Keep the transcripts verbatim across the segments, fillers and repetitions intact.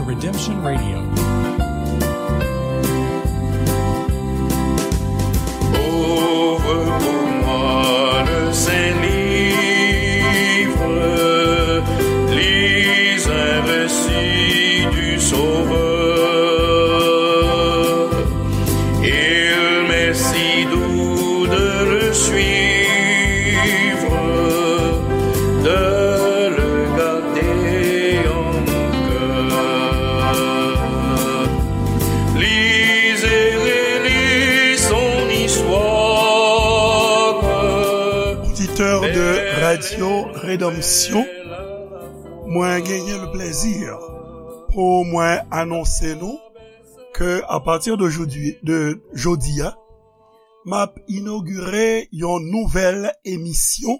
Redemption Radio. Ouvre pour moi le saint livre, lis un récit du Sauveur. Il m'est si doux de le suivre, de le garder en mon cœur. Lis et relis son histoire. Oditè de Radio Rédemption, mwen genyen le plezi pou mwen anonse nou ke apati de jodi, de jodi a, m ap inogire yon nouvèl emisyon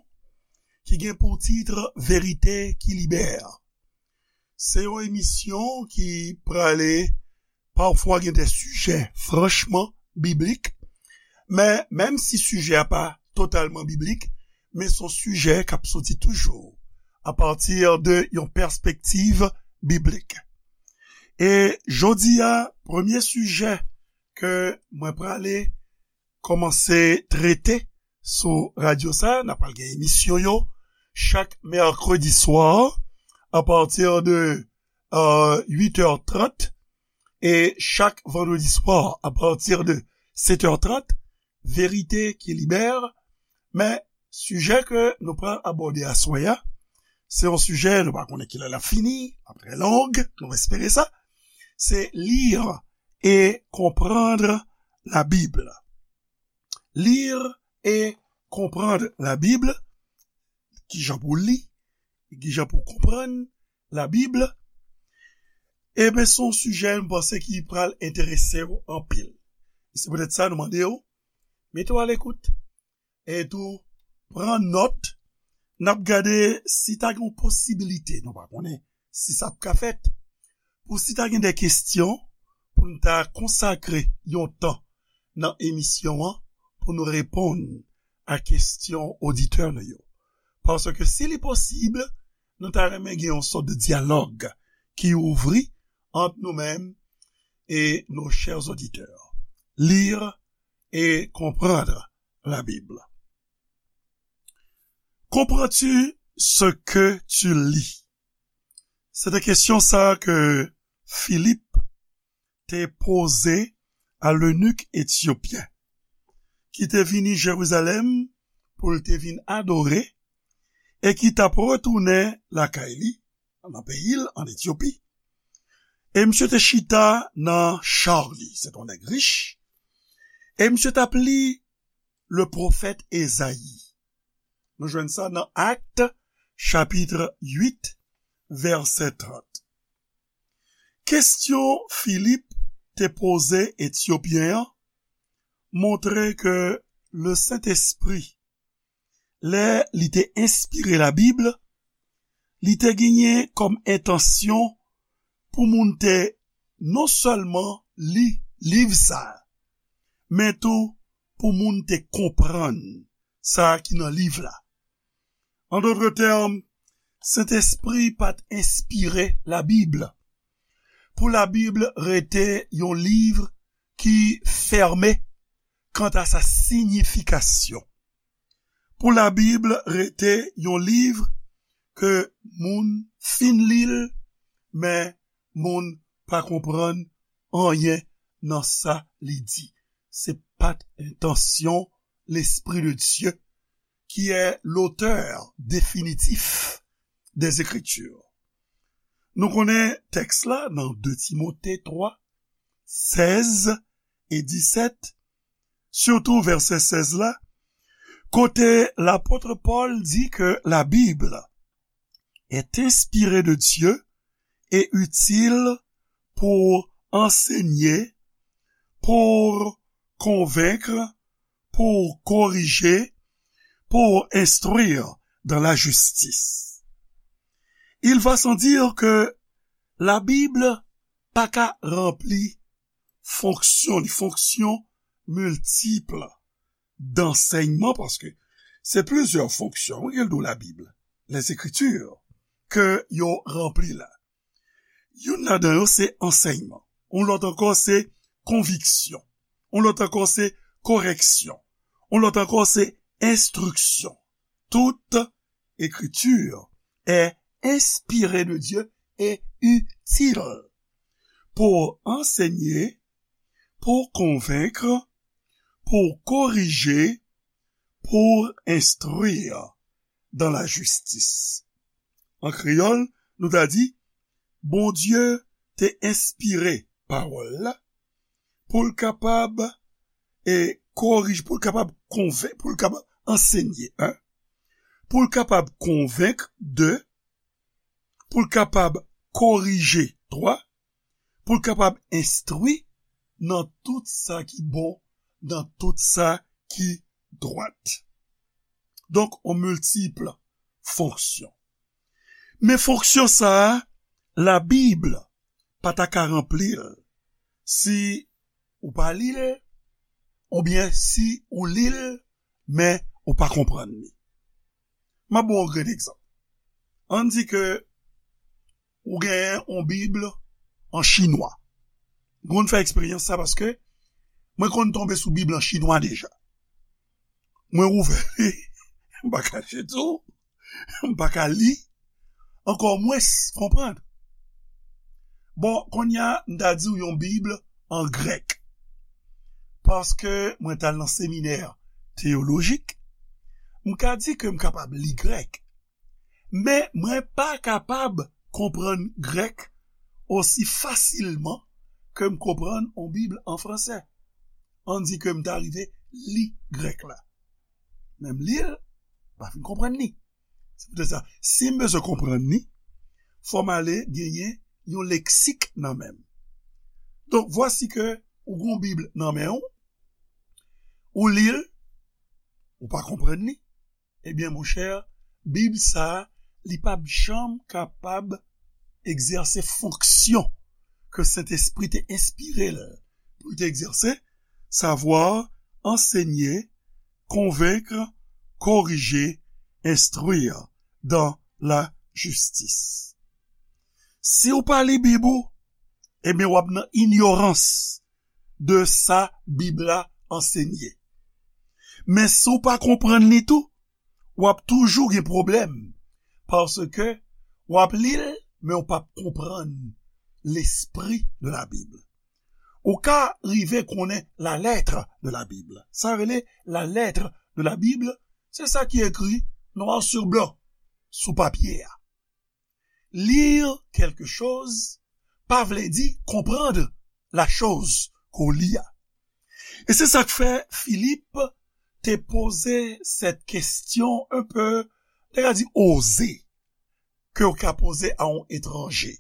ki gen pou tit Verite ki Libère. Se yon emisyon ki prale pafwa gen de sijè franchman biblik, men menm si sijè a pa totalman biblik, men se yon sijè k ap soti toujou apati de yon pèspektiv biblik. E jodi a, premye sijè ke mwen prale kòmanse trete sou radyo sa, n ap pral gen emisyon yo chak mèkredi swa apati de euh, uit è trant e chak vandredi swa apati de sèt è trant, Verite ki Libère. Men sijè ke nou pral abòde aswè a, se yon sijè nou pa konnen kilè l ap fini, l ap trè long, nou espere sa. Se lire et comprendre la Bible. Lire et comprendre la Bible. Kijan pou li, kijan pou konprann Labib. Ebyen, se yon sijè m panse ki pral enterese w anpil. E se poutèt sa nou mande w, mete w alekout. E tou, pran nòt. N ap gade si ta gen yon posibilite, nou pa konnen si sa ap ka fèt, pou si ta gen de kesyon, pou n ta konsakre yon tan nan emisyon an pou nou reponn a kesyon oditè nou yo. Paske si li posib, nou ta renmen gen yon sòt de dyalòg ki ouvri ant nou menm e nos chers auditeurs. Lire et comprendre la Bible. Comprends-tu ce que tu lis? Se te kesyon sa ke Filip te poze a lenik etyopyen ki te vini Jerizalèm pou l te vin adore e ki t ap retounen lakay li, nan peyi l, an Etyopi. E misye te chita nan cha li, se te yon nèg rich, e misye t ap li le pwofèt Ezayi. Nou jwenn sa nan Actes, chapitre huit, verset trente. Kesyon Filip te poze Etyopyen an montre ke le Sentespri, lè li te enspire Labib, li te genyen kòm entansyon pou moun te non sèlman li liv sa a, men tou pou moun te konprann sa ki nan liv la. An dòt tèm, Sentespri pa t enspire Labib pou Labib rete yon liv ki fèmen kanta sa siyifikasyon. Pou Labib rete yon liv ke moun fin li l, men moun pa konprann anyen nan sa li di. Se pa t entansyon Lespri de Dye, ki est l'auteur définitif des Écritures. Nou konnen tèks la nan de Timote twa, sèz e disèt, sitou vèsè sèz la, kote lapot Pòl di ke Labib est inspirée de Dieu et utile pour enseigner, pour convaincre, pour corriger, pour instruire dans la justice. Il va sans dire que Labib pa ka ranpli fonksyon li, fonksyon miltip dansèyman, paske se plizyè fonksyon, wi, ke l dwe Labib, les Écritures, ke yo ranpli la. Youn ladan yo se ansèyman. Yon lòt ankò se konviksyon. Yon lòt ankò se koreksyon. Yon lòt ankò se enstriksyon. Toute écriture est inspirée de Dieu et utile pour enseigner, pour convaincre, pour corriger, pour instruire dans la justice. An kreyòl, nou ta di, Bondye te enspire pawòl la pou l kapab e korije, pou l kapab konvenk, pou l kapab ansenye, en, pou l kapab konvenk, de, pou l kapab korije, twa, pou l kapab enstwi nan tout sa ki bon, nan tout sa ki dwat. Donk, on miltip fonksyon. Men fonksyon sa a, Labib pa ta ka ranpli l si ou pa li l, oubyen si ou li l, men ou pa konprann li. M ap ba w yon grenn egzanp. Ann di ke ou genyen yon Bib an chinwa. M konn fè eksperyans sa paske mwen konn tonbe sou Bib an chinwa deja. Mwen ouvè li, m pa kache tou, m pa ka li, ankò mwens konprann. Bon, kounye a, m ta di w yon Bib an grèk. Paske mwen t al nan seminè teyolojik, m ka di ke m kapab li grèk. Men mwen pa kapab konprann grèk osi fasilman ke m konprann yon Bib an fransè. Ann di ke m ta rive li grèk la. Men m li l, m pa fin konprann li. Se poutèt sa, si m bezwen konprann li, fò m ale genyen yon leksik nan men m. Donk, vwasi ke ou gen yon Bib nan men w, ou li l, ou pa konprann li, ebyen, monchè, Bib sa a, li p ap janm kapab egzèse fonksyon ke Sentespri te enspire l pou l te egzèse, savwa ansenye, konvenk, korije, enstwi dans la justice. Si w pa li Bib ou, ebyen, w ap nan inyorans de sa Bib la ansenye. Men si w pa konprann li tou, w ap toujou gen pwoblèm, paske w ap li l, men w p ap konprann l'esprit de la Bible. Ou ka rive konnen la lettre de la Bible. Sa rele la lettre de la Bible, se sa ki ekri noir sur blanc sou papye a. Lire quelque chose pa vle di konprann la choz ke w li a. E se sa k fè Filip te poze sèt kesyon un peu, te ka di oze, ke w ka poze a yon etranje,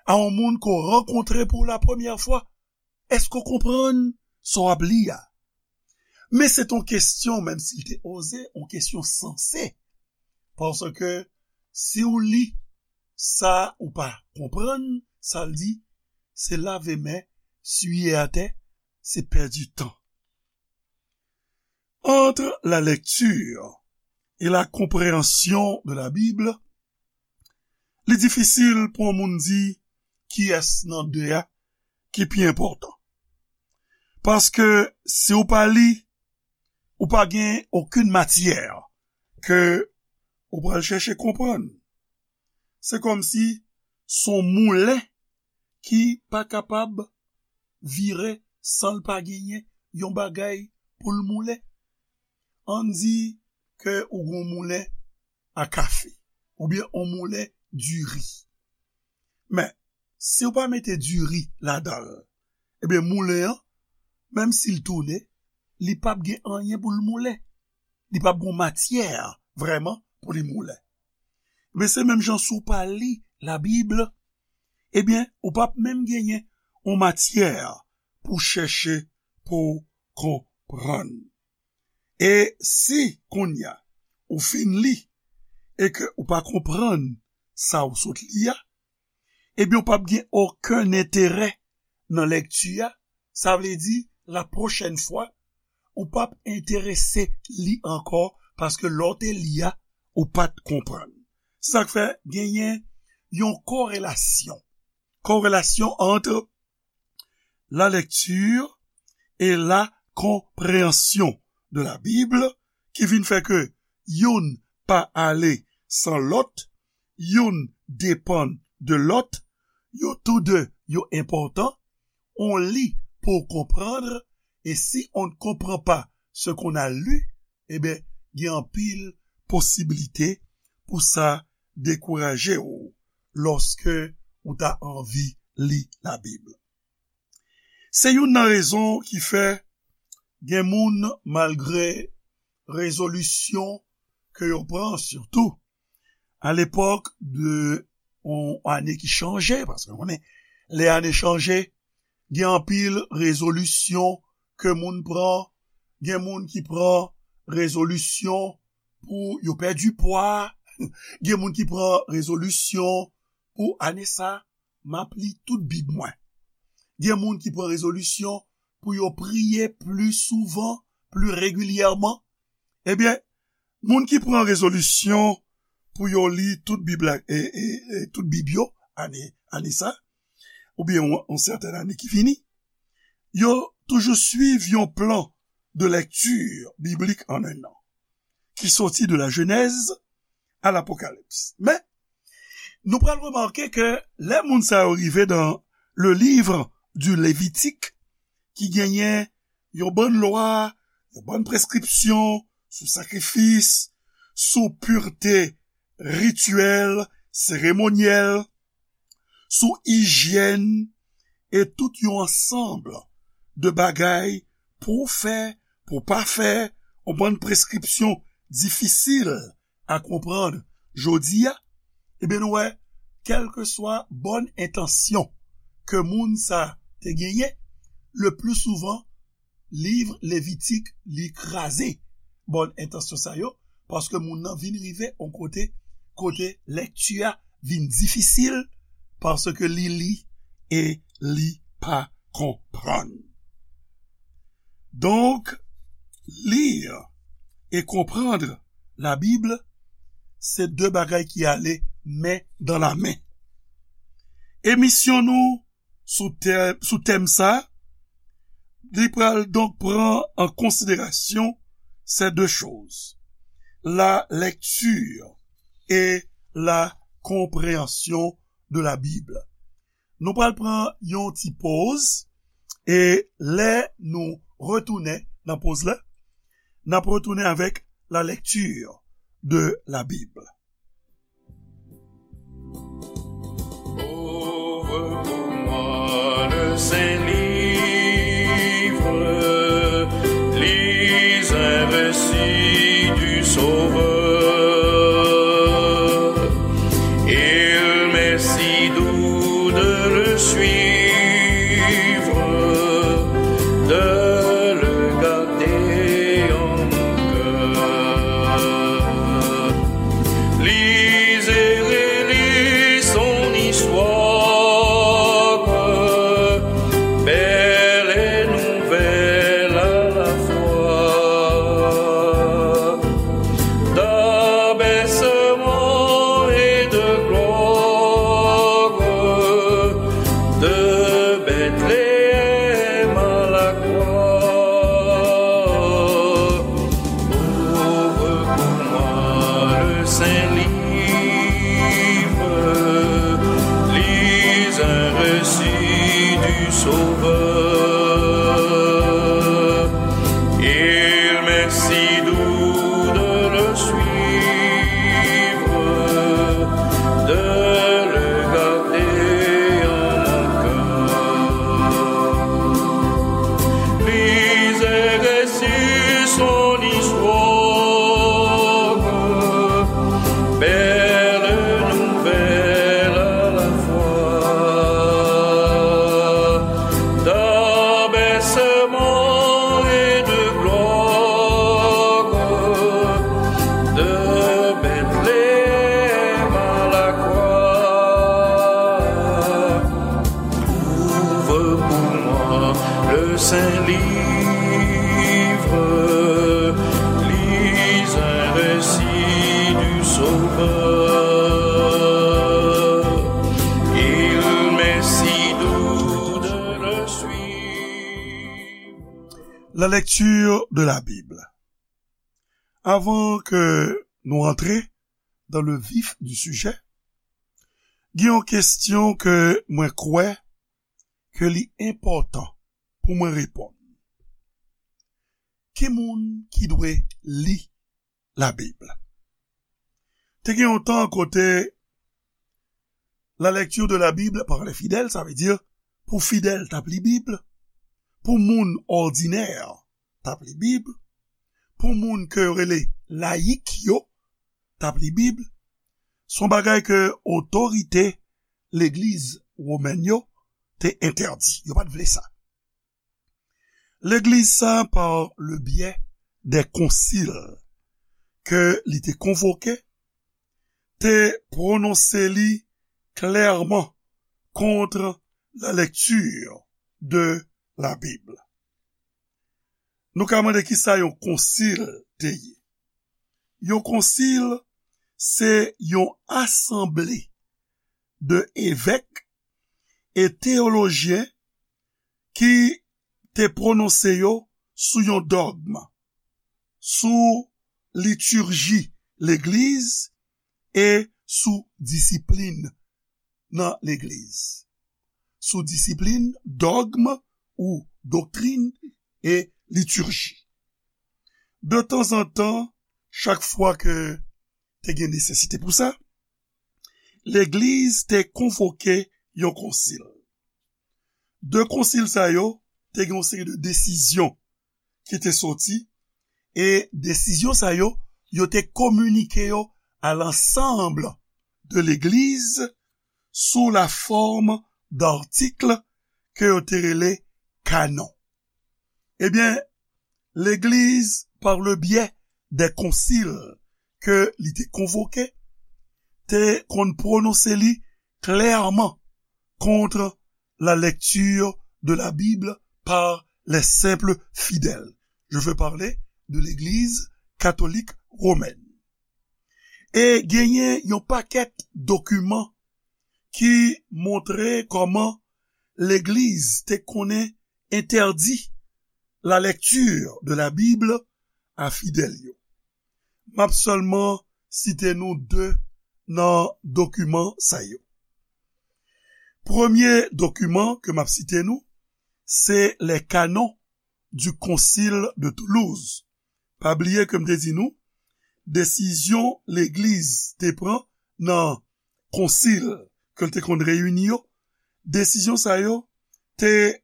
a yon moun ke w rankontre pou la premyè fwa. Èske w konprann sa w ap li a? Men se t on kesyon, menm si l te oze, on kesyon sanse. Paske si w li sa ou pa konprann, sa l di, se lave men, siye atè, se pèdi tan. Entre la lecture et la compréhension de la Bible, li difisil pou yon moun di kiyès nan de a ki pi enpòtan. Paske si w pa li, ou pa gen okenn matyè ke ou pral chèche konprann. Se kòmsi s on moulen ki pa kapab vire san l pa genyen yon bagay pou l moulen. Ann di ke ou gen yon moulen a kafe, oubyen yon moulen diri. Men, si w pa mete diri ladan l, ebyen, moulen an, menm si l tounen, li p ap gen anyen pou l moulen. Li p ap gen yon matyè vrèman pou li moulen. Men se menm jan si w pa li Labib, ebyen, ou p ap menm genyen yon matyè pou chèche pou w konprann. E si kounye a ou fin li e ke ou pa konprann sa ou sot li a, ebyen, ou p ap gen okenn enterè nan lekti a. Sa vle di, la pwochèn fwa, ou p ap enterese li ankò, paske lè w te li a, ou pa t konprann. Se sa k fè genyen yon korelasyon corrélation entre la lecture et la compréhension de la Bible, ki vin fè ke youn pa ale san lòt, youn depann de lòt, yo tou de yo enpòtan, on li pou w konprann, e si on ne comprend pas ce qu'on a lu, ebyen, gen anpil posiblite pou sa dekouraje w lòske ou ta anvi li Labib. Se youn nan rezon ki fè gen moun, malgre rezolisyon ke yo pran, sitou a lepòk de yon ane ki chanje, paske nou konnen lè ane chanje, gen anpil rezolisyon ke moun pran, gen moun ki pran rezolisyon pou yo pèdi pwa, gen moun ki pran rezolisyon pou ane sa, m ap li tout Bib mwen. Gen moun ki pran rezolisyon pou yo priye pli souvan, pli regilyèman. Ebyen, moun ki pran rezolisyon pou yo li tout Bib la, e, e, e tout Bib yo, ane, ane sa, oubyen yon, yon sètèn ane ki vini, yo toujou swiv yon plan de lecture biblique en un an, ki soti de la Genèse à l'Apocalypse. Men, nou pral remake ke lè moun sa yo rive dans le livre du Lévitique, ki genyen yon bann lwa, yon bann preskripsyon sou sakrifis, sou pirte rityèl, seremonyèl, sou ijyèn, e tout yon ansanm de bagay pou w fè, pou w pa fè, yon bann preskripsyon difisil a konprann jodi a, ebyen, nou wè, kèlkeswa bòn entansyon ke moun sa te genyen, le pli souvan, liv Levitik, li kraze bòn entansyon sa yo, paske moun nan vin rive yon kote, kote lèkti a vin difisil, paske li li e li pa konprann. Donk, lire et comprendre la Bible, se de bagay ki ale men dan la men. Emisyon nou sou tè-, sou tèm sa, li pral donk pran an konsiderasyon ces deux choses, la lecture et la compréhension de la Bible. Nou pral pran yon ti poz, e lè nou retounen nan poz la, n ap retounen avèk la lecture de la Bible. Ouvre pour moi le saint livre, lis un récit du Sauveur. Il m'est si doux de le suivre, de le garder en mon cœur. Lis et relis son histoire, belle et nouvelle à la fois, d'abaissement et de gloire, de Bethléem à la croix. Ouvre pour moi le saint livre, lis un récit du Sauveur. Il m'est si doux de le suivre, de le garder en mon cœur. Lis et récit son histoire, belle nouvelle à la fois, d'abaissement et de gloire, de Bethléem à la croix. Ouvre pour moi le saint livre, lis un récit du Sauveur. Il m'est La lecture de la Bible. Avan ke nou antre dans le vif du sujet, gen yon kesyon ke mwen kwè ke li enpòtan pou mwen reponn. Ki moun ki dwe li Labib? Te gen yon tan kote la lecture de la Bible par les fidèles, sa vle di pou fidèl t ap li Bib, pou moun òdinè t ap li Bib, pou moun ke yo rele layik yo t ap li Bib, se yon bagay ke otorite legliz womèn yo te entèdi. Yo pa t vle sa. Legliz sa, par le biais des concile ke li te konvoke, te pwononse li klèman kont la lecture de la Bible. Nou ka mande kisa yon konsil te ye. Yon konsil se yon asanble de evèk e teyolojyen ki te pwononse yo sou yon dògm, sou litirji legliz e sou disiplin nan legliz. Sou disiplin, dògm ou doktrin e litirji. De tanzantan, chak fwa ke te gen nesesite pou sa, legliz te konvoke yon konsil. De konsil sa yo te gen yon seri de desizyon ki te soti, e desizyon sa yo, yo te kominike yo à l'ensemble de legliz sou la forme d'articles ke yo te rele kanon. Ebyen, legliz, par le biais des concile ke li te konvoke, te konn pwononse li klèman kont la lecture de la Bible par les simples fidèles. Je veux parler de l'Église catholique romaine. E genyen yon pakèt dokiman ki montre kòman legliz te konnen entèdi la lecture de la Bible a fidèl yo. M ap sèlman site nou de nan dokiman sa yo. Premye dokiman ke m ap site nou, se les canons du Concile de Toulouse. Pa bliye ke m te di nou, desizyon legliz te pran nan konsil ke l te konn reyini yo, desizyon sa yo te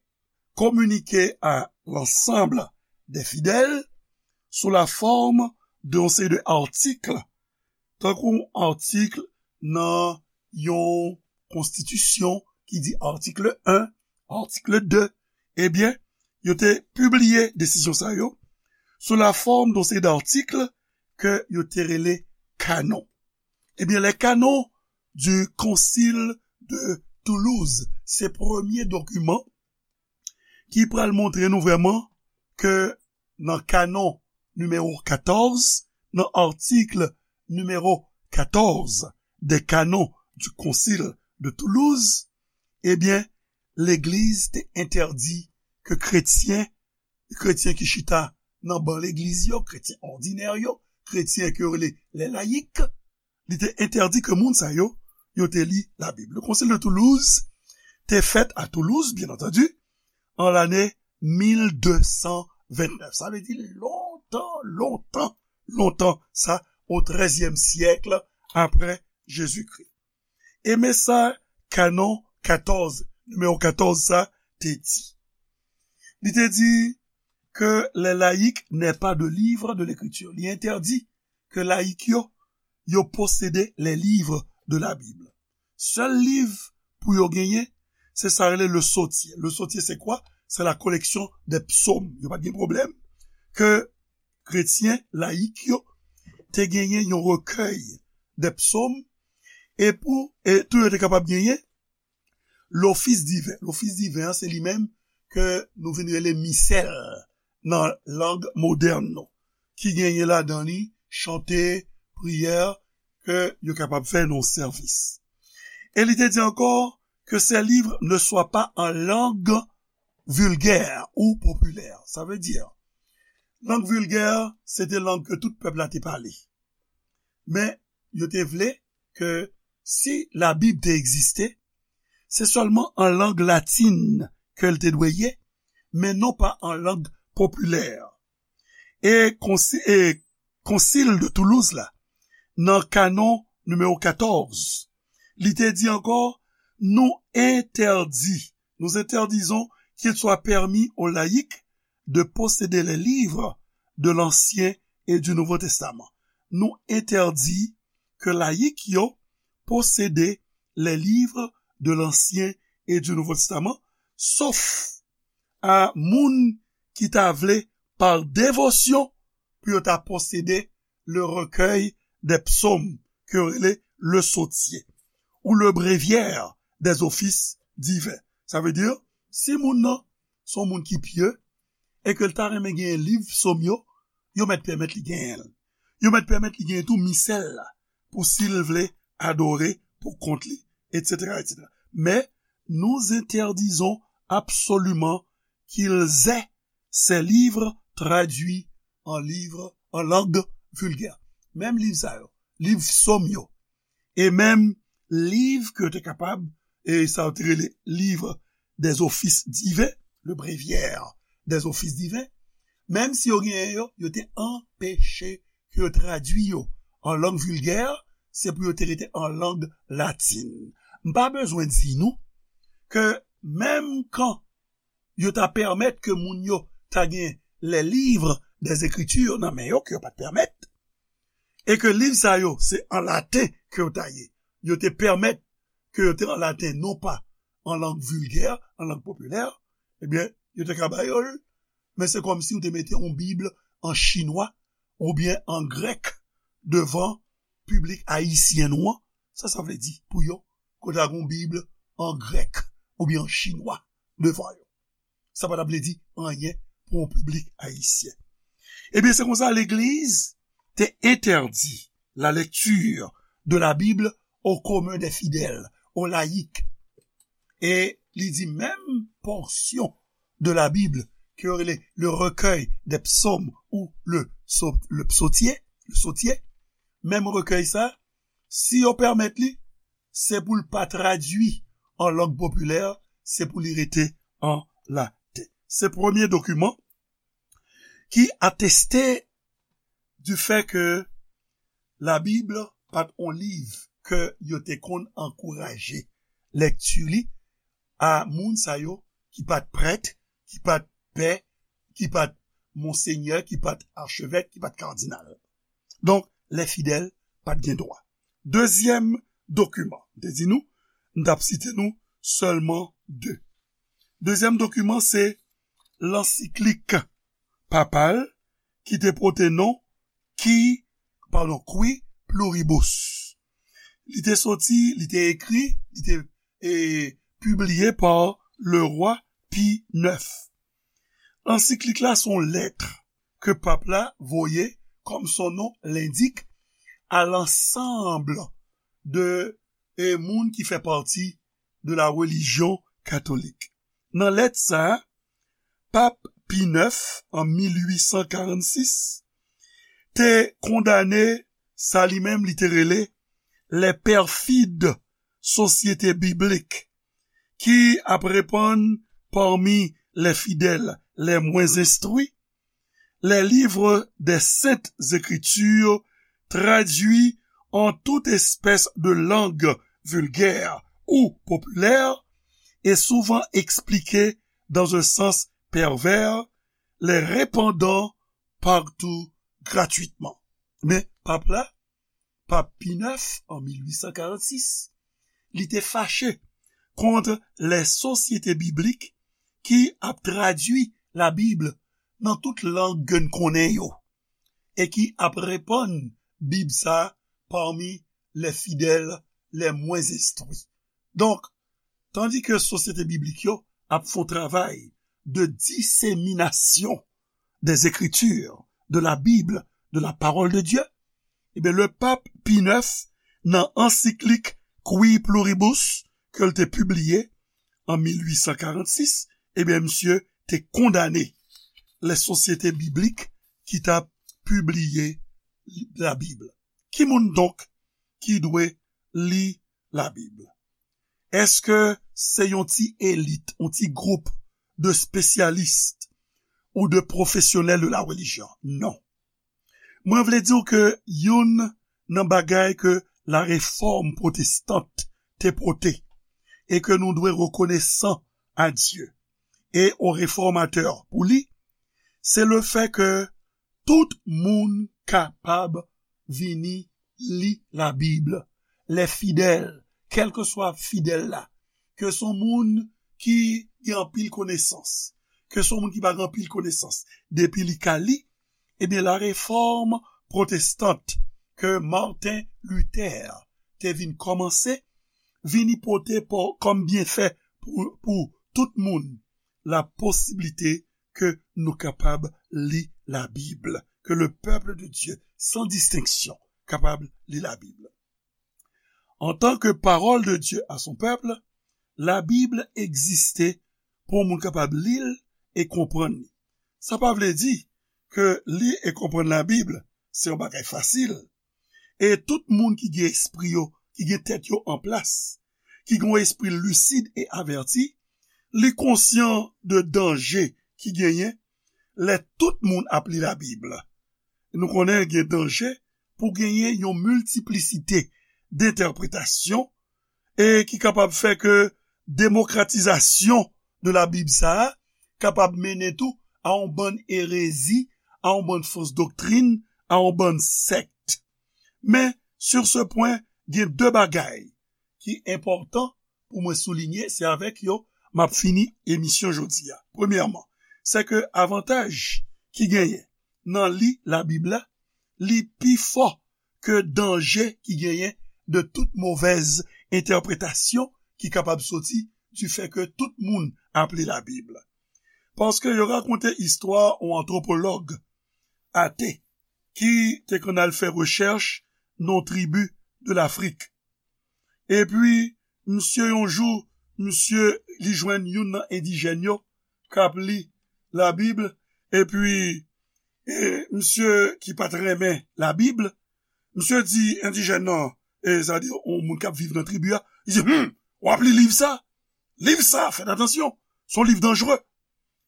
communiqué à l'ensemble des fidèles sous la forme de yon seri de atik, tankou atik nan yon konstitisyon ki di atik en, atik de, ebyen, yo te pibliye desizyon sa yo sou la fòm de yon seri d'atik ke yo te rele kanon. Ebyen, les canons du Concile de Toulouse, se premye dokiman ki pral montre nou vrèman ke nan kanon nimewo katòz, nan atik nimewo katòz des canons du Concile de Toulouse, ebyen, legliz te entèdi ke kretyen, kretyen ki chita nan ban legliz yo, kretyen òdinè yo, kretyen ke yo rele les laïcs, li te entèdi ke moun sa yo, yo te li Labib. Le Concile de Toulouse te fèt a Toulouse, byen antandi, an lane mil de san vennèf. Sa vle di lontan, lontan, lontan, sa, o trèzyèm syèk apre Jezikri. E men sa kanon katòz, nimewo katòz sa, te di. Li te di que les laïcs n'aient pas de livre de l'écriture. Li entèdi ke layik yo, yo posede les livres de la Bible. Sèl liv pou yo genyen, se sa rele le Sautier. Le Sautier, c'est quoi? C'est la collection des psaumes. Yo pa t gen pwoblèm ke kretyen layik yo te genyen yon recueil des psaumes, e pou, e tou yo te kapab genyen l'office divin. L'office divin an, se li menm ke nou vin rele misèl nan lang modèn nou, ki genyen ladan li chante, priyè, ke yo kapab fè nan sèvis. E li te di ankò que ces livres ne soient pas en langue vulgaire ou populaire. Sa vle di, Lang vilgè, se te lang ke tout pèp la te pale. Men, yo te vle ke si Labib te egziste, se sèlman an lang latin ke l te dwe ye, men non pa an lang popilè. E konsi-, e Konsil de Toulouse la, nan kanon nimewo katòz, li te di ankò, nous interdit, nous interdisons qu'il soit permis aux laïcs de posséder les livres de l'Ancien et du Nouveau Testament. Nou entèdi ke layik yo posede les livres de l'Ancien et du Nouveau Testament, sof a moun ki ta vle, par dévotion, pou yo ta posede le recueil des psaumes, ke yo rele le sautier, ou le bréviaire des offices divins. Sa vle di, si moun nan se yon moun ki pye, e ke l ta renmen gen liv sòm yo, yo mèt pèmèt li genyen l. Yo mèt pèmèt li genyen tou misèl la, pou si l vle adore pou kont li, etsetera, etsetera. Mais nous interdisons absolument qu'ils aient ces livres traduits en livres, en langue vulgaire. Menm liv sa yo, liv sòm yo, e menm liv ke yo te kapab, e sa yo te rele livre des offices divins, le bréviaire des offices divins, menm si yo genyen yo, yo te anpeche ke yo tradui yo an lang vilgè, se pou yo te rete an lang latin. M pa bezwen di nou ke menm kan yo ta pèmèt ke moun yo ta gen les livres des Écritures nan men yo, ke yo pa t pèmèt, e ke liv sa yo se an laten ke yo ta ye, yo te pèmèt ke yo te an laten, non pa an lang vilgè, an lang popilè, ebyen, yo te ka ba yo l, men se kòmsi ou te mete yon Bib an chinwa oubyen an grèk devan piblik ayisyen nou an. Sa sa vle di pou yo, ke w ta gen yon Bib an grèk oubyen an chinwa devan yo? Sa pa t ap vle di anyen pou yon piblik ayisyen. Ebyen, se konsa legliz te entèdi la lecture de la Bible au commun des fidèles, aux laïcs. E li di menm pòsyon de la Bible ke yo rele le recueil des psaumes ou le, so- le psautier, le sautier, menm rekèy sa, si yo pèmèt li, se pou l pa tradui an lang popilè, se pou li rete an laten. Se premye dokiman ki ateste du fait que la Bible pa t on liv ke yo te konn ankouraje lekti li a moun sa yo ki pa t prèt, ki pa t pè, ki pa t monsenyè, ki pa t achevèk, ki pa t kadinal. Donk, les fidèles pa t gen dwa. Dezyèm dokiman, m te di nou, m t ap site nou sèlman de. Dezyèm dokiman, se lansiklik papal ki te pote non ki, padon, Qui Pluribus. Li te soti, li te ekri, li te, e, pibliye pa le rwa Pi nèf. Lansiklik la se yon lèt ke pap la voye, comme son nom l'indique, à l'ensemble de, e, moun ki fè pati de la religion catholique. Nan lèt sa a, pap Pi nèf, an mil uit san karannsis, te kondane sa li menm li te rele les perfides sociétés bibliques, ki ap repann parmi les fidèles les moins instruits, les livres des Saintes Écritures traduits en toute espèce de langue vulgaire ou populaire et souvent expliqués dans un sens pervers, les répandant partout gratuitement. Men pap la, pap Pi nèf, an mil uit san karannsis, li te fache kont les sociétés bibliques ki ap tradui Labib nan tout lang ke n konnen yo, e ki ap repann Bib sa parmi les fidèles les moins instruits. Donk, tandi ke sosyete biblik yo ap fè yon travay de diseminasyon des Écritures, de la Bible, de la parole de Dieu, ebyen, le pap Pi nèf, nan ansiklik Qui Pluribus, ke l te pibliye an mil uit san karannsis, ebyen, misye te kondane les sociétés bibliques ki t ap pibliye Labib. Ki moun donk ki dwe li Labib? Èske se yon ti elit, yon ti gwoup de spesyalis ou de pwofesyonèl de la relijyon? Non. Mwen vle di w ke youn nan bagay ke la réforme protestante te pote e ke nou dwe rekonesan a Dye e o refòmatè pou li, se le fè ke tout moun kapab vini li Labib. Lè fidèl, kèlkeswa fidèl la, ke se yon moun ki gen anpil konesans, ke se yon moun ki pa gen anpil konesans, depi li ka li, ebyen, la réforme protestante ke Martin Luther te vin kòmanse, vini pote kòm byenfè pou, pou tout moun la posiblite ke nou kapab li Labib, ke le peuple de Dieu, sans distinction, kapab li Labib. En tant que parole de Dieu à son peuple, Labib egziste pou moun kapab li l e konprann li. Sa pa vle di ke li e konprann Labib se yon bagay fasil. E tout moun ki gen espri yo, ki gen tèt yo an plas, ki gen yon espri lisid e avèti, li konsyan de danje ki genyen lè tout moun ap li Labib. Nou konnen gen danje pou genyen yon miltiplisite dentèpretasyon e ki kapab fè ke demokratizasyon de Labib sa a kapab mennen tou a yon bann erezi, a yon bann fos doktrin, a yon bann sèkt. Men, sur ce point, gen de bagay ki enpòtan pou mwen soulinye, se avèk yo m ap fini emisyon jodi a. Premyèman, se ke avantaj ki genyen nan li Labib la, li pi fò ke danje ki genyen de tout movèz entèpretasyon ki kapab soti du fè ke tout moun ap li Labib. Paske yo rakonte istwa yon antwopològ ate ki te konn al fè rechèch nan yon tribi de Lafrik. Epi, misye yon jou, misye li jwenn youn nan endijèn yo k ap li Labib, epi e, misye ki pa t renmen Labib, misye di endijèn nan, e, sa di yon moun k ap viv nan tribi a, li di, hmm, w ap li liv sa? Liv sa, fèt atansyon, se yon liv danjere.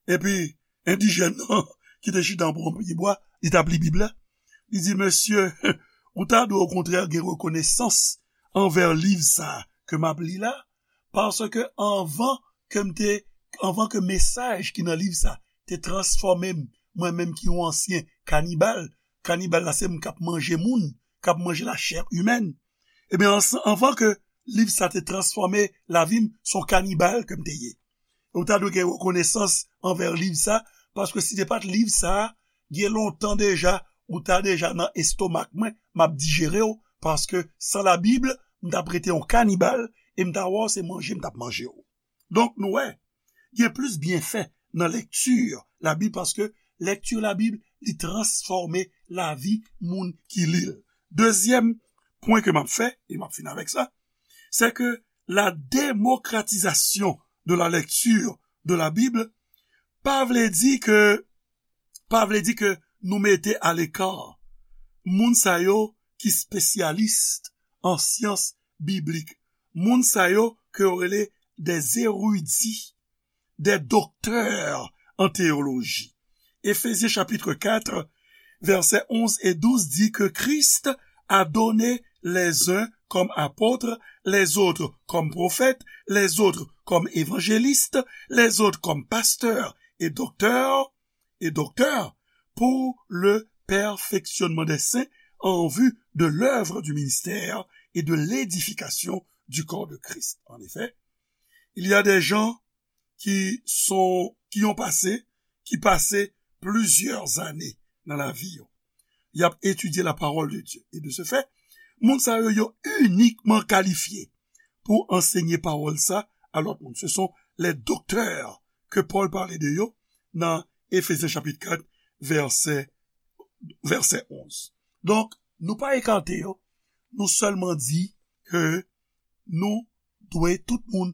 Epi, endijèn nan, ki te chita anba yon pye bwa, li t ap li Bib la, li di, mesye, ou ta dwe okontrè gen rekonesans anvè liv sa ke m ap li la, paske anvan ke m te, anvan ke mesaj ki nan liv sa te transfòme m, mwen menm ki yon ansyen kanibal, kanibal la se moun k ap manje moun, k ap manje lachè imèn, ebyen, anvan ke liv sa te transfòme lavi m, se yon kanibal ke m te ye. Ou ta dwe gen rekonesans anvè liv sa, paske si te pa t liv sa, gen lontan deja, ou ta deja nan estomak mwen, m ap dijere w, paske san Labib, m t ap rete yon kanibal, e m ta wè w se manje m t ap manje w. Donk, nou wè, gen plis byenfè nan lekti Labib, paske lekti Labib, li transfòme lavi moun ki li l. Dezyèm pwen ke m ap fè, e m ap fini avèk sa, se ke la démocratisation de la lecture de la Bible pa vle di ke, pa vle di ke nou mete aleka moun sa yo ki spesyalis an syans biblik, moun sa yo ke yo rele des érudits, des docteurs en théologie. Éphésiens chapitre quatre, versets onze et douze dit que Christ a donné les uns comme apôtres, les autres comme prophètes, les autres comme évangélistes, les autres comme pasteurs et docteurs, et docteurs pour le perfectionnement des saints en vue de l'œuvre du ministère et de l'édification du corps de Christ. En effet, il y a des gens qui sont, qui ont passé, qui passaient plusieurs années dans la vie. Y ap etidye la parole de Dieu. Et de ce fait, moun sa yo, yo inikman kalifye pou ansenye pawòl sa a lòt moun. Ce sont les docteurs que Paul parlait de yo nan Éphésiens chapitre quatre, verset, verset onze. Donk, nou pa ekate yo, nou sèlman di ke nou dwe tout moun